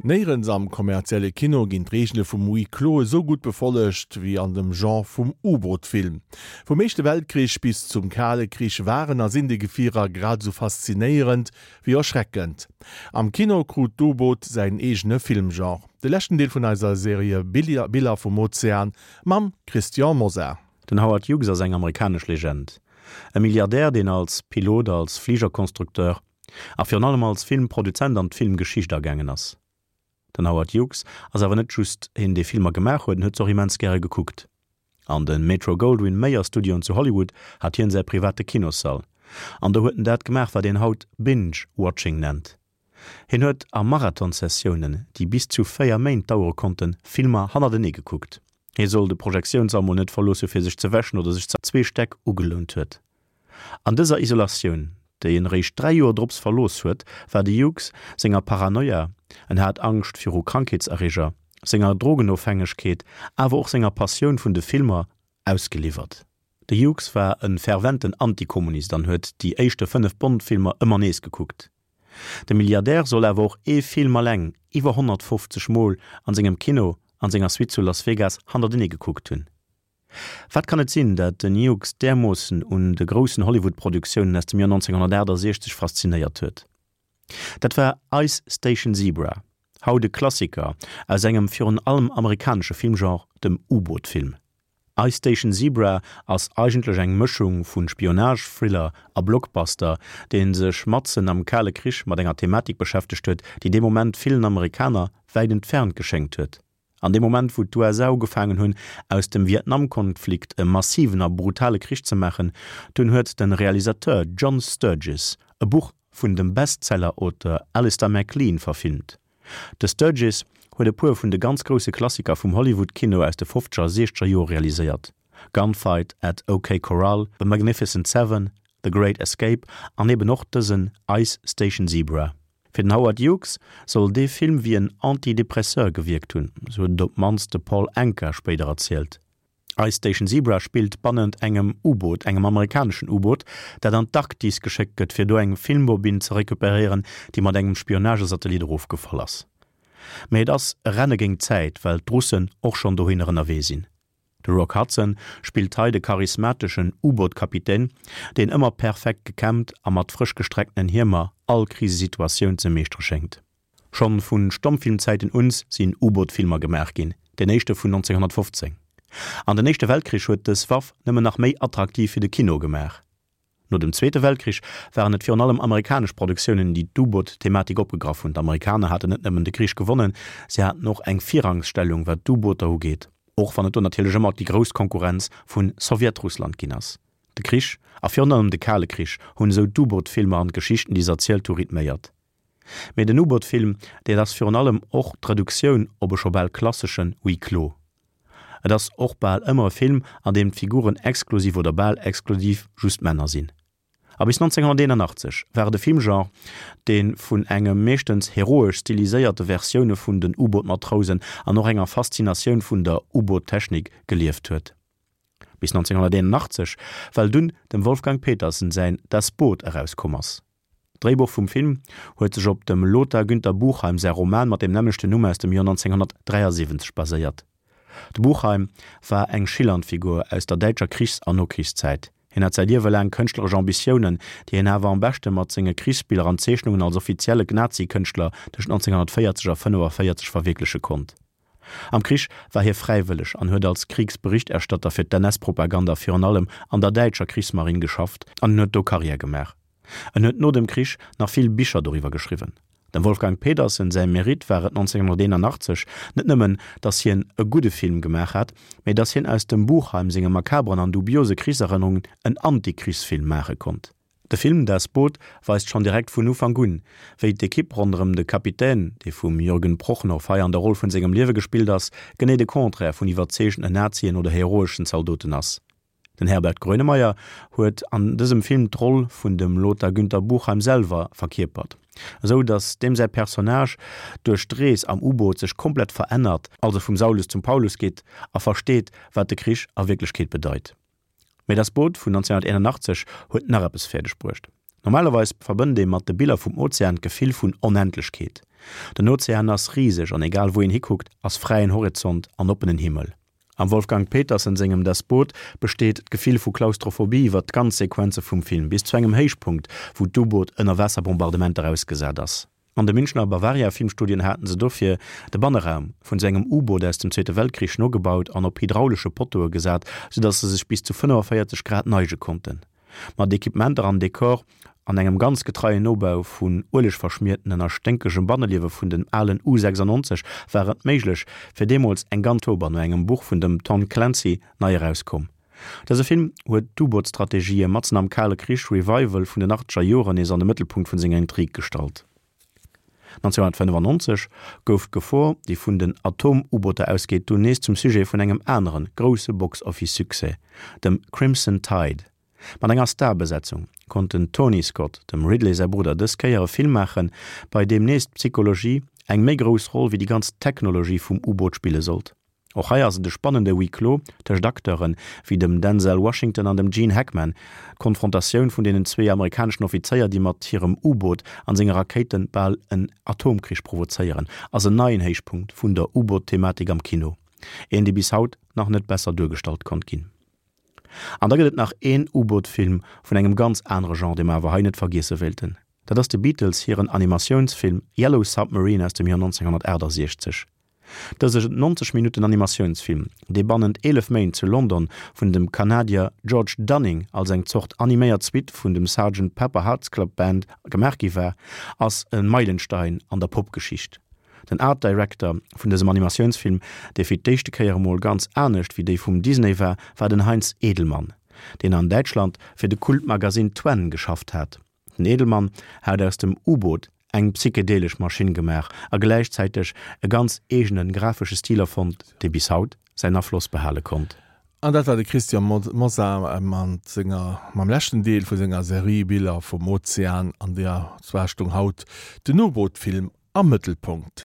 Néierens am kommerzielle Kino ginn d'Reegele vum Huis clos esou gutt befollegt wéi an dem Genre vum U-Boot-Film. Vum Éischte Weltkrich bis zum Kale Krich waren a sinn déi Gefierer grad esou faszinéierend wéi erschreckend. Am Kino krut d'U-Boot säin eegene Filmgenre. De leschten Deel vun eiser Serie Biller vum Ozean mam Christian Mosar. Den Howard Hughes ass eng amerikanesch Legend. E Milliardär, deen als Pilot, als Fligerkonstrukteur A virun allem als Filmproduzent an d'Filmgeschicht agaangen ass. Den Howard Hughes ass awer net just een dee Filmer gemaach huet, en huet se och immens gäre gekuckt. An de Metro Goldwyn Mayer Studioen zu Hollywood hat hien säi private Kinossall. An do huet en dat gemaach wat een haut Binge Watching nennt. Hien huet a Marathon-Sessiounen, déi bis zu 4 Méint dauere konnten, Filmer hannertenee gekuckt. Hie soll de Projektiounssall mol net verlooss hu fir sech ze wäschen oder sech ze. Zwee Stäck ugelount huet. An dëser Isolatioun, déi en eréischt 3 Joer drops verlooss huet, war de Hughes senger Paranoia, en hat Angscht viru Krankheetserreger, senger Drogenofhängegkeet, awer och senger Passioun vun de Filmer ausgeliwwert. De Hughes war e ferventen Antikommunist an huet déi éischte 5 Bond-Filmer ëmmer nees gekuckt. De Milliardär soll awer och ee Film alleng iwwer 150 Mol an sengem Kino an senger Suite zu Las Vegas hannertenee gekuckt hunn. Wat kann et sinn, dat den Hughes därmoossen un de groussen Hollywood-Produktiounen aus dem Joer 1968 faszinéiert huet? Dat war Ice Station Zebra, haut e Klassiker aus engem virun allem amerikanesche Filmgenre, dem U-Boot-Film. Ice Station Zebra ass eigentlech eng Mëschung vu Spionage-Thriller a Blockbuster, dee sech matzen am Kale Krich mat enger Thematik beschäftegt huet, déi dee Moment villen Amerikaner wäit entfernt geschéngt huet. An deem Moment, wou d'USA ugefaangen hunn, aus dem Vietnam-Konflikt e massiven a brutale Krich ze maachen, dunn huet de Realisateur John Sturges e Buch vun dem Bestseller-Auteur Alistair MacLean verfilmt. De Sturges huet e puer vun de ganz grousse Klassiker vum Hollywood-Kino aus de fofzeger a siechzeger Jore realiséiert, Gunfight at OK Corral, The Magnificent Seven, The Great Escape an eben och dësen Ice Station Zebra. Fir den Howard Hughes soll dee Film wéi en Antidepresseur gewierkt hunn, sou huet et op d'mannst de Paul Anka spéider erzielt. Ice Station Zebra spillt bannent engem U-Boot, engem amerikaneschen U-Boot, dat an d'Arktis geschéckt gëtt, fir do eng Filmbobinn ze recuperéieren, déi mat engem Spionagesatellit erofgefall ass. Mee et ass e Renne géint d'Zäit, well d'Russen och schonn dohinner ënnerwee sinn. De Rock Hudson spillt hei de charismateschen U-Boot-Kapitän, deen ëmmer perfekt gekämmt a mat frësch gestrecktenen Hiemer all Krisesituatioun ze meeschtere schéngt. Schonn vu Stommfilmzäiten uns sinn U-Boot-Filmer gemaach ginn, deen éischte vun 1915. An den Éischte Weltkrich huet dës Waff nëmmen nach méi attraktiv fir de Kino gemaach. No dem Zweete Weltkrich waren et virun allem amerikanesch Produktiounen, déi d'U-Boot-Thematik opgegraff hunn. D'Amerikaner haten net nëmmen de Krich gewonnen, se haten och eng Virrangsstellung wat d'U-Booter ugeet, och wann et do natierlech ëmmer déi grouss Konkurrenz vu Sowjetrussland ginn ass. De Krich, a virun allem de Kale Krich, hunn esou d'U-Boot-Filmer an d'Geschichten, déi se erzielt hu, rhythméiert. Mee den U-Boot-Film, dat ass virun allem och d'Reduktioun op e scho bal klasseschen Huis clos. Et ass och bal ëmmer e Film, an deem d'Figuren exklusiv oder bal exklusiv just Männer sinn. A bis 1981 war et e Filmgenre, dee vun engem meeschtens heroesch stiliséierte Versioune vun den U-Boot-Matrousen an och enger Faszinatioun vun der U-Boot-Technik gelieft huet. Bis 1981, well dunn dem Wolfgang Petersen säin Das Boot erauskomm ass. D'Dréibuch vum Film huet sech op dem Lothar Günther Buchheim säi Roman mat dem nämmlechten Numm aus dem Joer 1973 baséiert. De Buchheim war eng schillernd Figur aus der däitscher Krichs an Nokrichszäit. Hien hat säi Liewe laang kënschtleresch Ambitiounen, déi hien awer am beschte mat senge Krichsbiller an Zeechnungen als offizielle Nazi-Kënschtler tëscht 1940 a 1945 verwierkleche konnt. Am Krich war hie fräiwëlleg an huet als Kriegsberichterstatter fir d'NS-Propaganda virun allem an der däitscher Krichsmarinn geschafft an en huet do Karriär gemaach. En huet no dem Krich nach vill Bicher doriwwer geschriwwen. Dem Wolfgang Petersen säi Mérite war et 1981 net nëmmen, datt hien e gudde Film gemaach hat, mee datt hien aus dem Buchheim senge makaberen an dubiose Krichserënnerungen en Antikrichsfilm maache konnt. De Film Das Boot weist schonn direkt vun Ufank un, wéi d'Ekipp ronderëm de Kapitän, dee vum Jürgen Prochnow hei an der Roll vun sengem Liewe gespillt ass, genee de Contraire vun iwwerzeegenden Nazien oder heroeschen Zaldoten ass. Den Herbert Grönemeyer huet an dësem Film d'Roll vun dem Lothar Günther Buchheim selwer verkierpert, esou datt deem säi Personnage duerch d'Rees am U-Boot sech komplett verännert, also vum Saulus zum Paulus geet a versteet, wat de Krich a Wierklechkeet bedeit. Mee Das Boot vun 1981 huet nach eppes fäerdeg bruecht. Normalerweis verbënnt ee mat de Biller vum Ozean d'Gefill vun Onendlechkeet. Den Ozean ass riseg an egal wou een hikuckt, ass fräien Horizont an oppenen Himmel. Am Wolfgang Petersen sengem Das Boot besteet d'Gefill vu Klaustrophobie iwwer d'ganz Sequenze vum Film, bis zu engem Héichpunkt, wou d'U-Boot ënner Waasserbombardementer ausgesat ass. An de Münchner Bavaria Filmstudien haten se dofir de Banneraum vun sou engem U-Boot aus dem Zweete Weltkrich nogebaut an op hydraulesche Pottoe gesat, sou datt se sech bis zu 45 Grad neige konnten. Mat Equipementer an Dekor an engem ganz getreien Nobau vun uelegverschmiertenen a sténkegem Banneliewe vun den alen U 96 war et méiglech, fir deemools eng ganz Oktober no engem Buch vun dem Tom Clancy nei erauskoum. Dëse Film huet d'U-Boot-Strategië matzen am Kale Krich-Revival vun den achtzeger Joren nees an de Mëttelpunkt vun senger Intrig gestallt. 1995 gouf d'Gefor, déi vun den Atom-U-Booter ausgeet, dunn nees zum Sujet vun engem anere grousse Box-Office-Succès, dem Crimson Tide. Mat enger Starbesetzung konnt den Tony Scott, dem Ridley säi Brudder, dës Kéier e Film maachen, bei deem nees d'Psychologie eng méi grouss Roll wéi déi ganz Technologie vum U-Boot spille sollt. Och hei ass et e spannende Huis clos tëscht Acteure wéi dem Denzel Washington an dem Gene Hackman. D'Konfrontatioun vun deenen zwee amerikaneschen Offizéier, déi mat hirem U-Boot an senge Rakéite bal en Atomkrich provozéieren, ass en neien Héichpunkt vun der U-Boot-Thematik am Kino. Een, dee bis haut nach net besser duergestallt konnt ginn. An da gëtt et nach een U-Boot-Film vun engem ganz anere Genre, dee mer awer hei net vergiesse wéilten. Dat ass de Beatles hiren Animatiounsfilm Yellow Submarine aus dem Joer 1968. Dëse 90 Minutten Animatiounsfilm, dee bannent 11 Méint zu London vun dem Kanadier George Dunning als eng Zort animéiert Suite vun dem Sergeant Pepper Hearts Club Band gemaach gi war, ass e Meilenstein an der Popgeschicht. Den Art Director vun dësem Animatiounsfilm, dee fir d'éischte Kéier emol ganz anescht wéi déi vum Disney war, war den Heinz Edelmann, deen an Däitschland fir de Kultmagasinn Twen geschafft hat. Den Edelmann hat aus dem U-Boot eng psychedelesch Maschinn gemaach a gläichzäiteg e ganz eegene grafesche Stil erfonnt, dee bis haut säin Afloss behale konnt. An dat war de Christian Mosar mat senger, mam leschten Deel vu senger Serie Biller vum Ozean, an där zwar stoung haut den U-Boot-Film am Mëttelpunkt.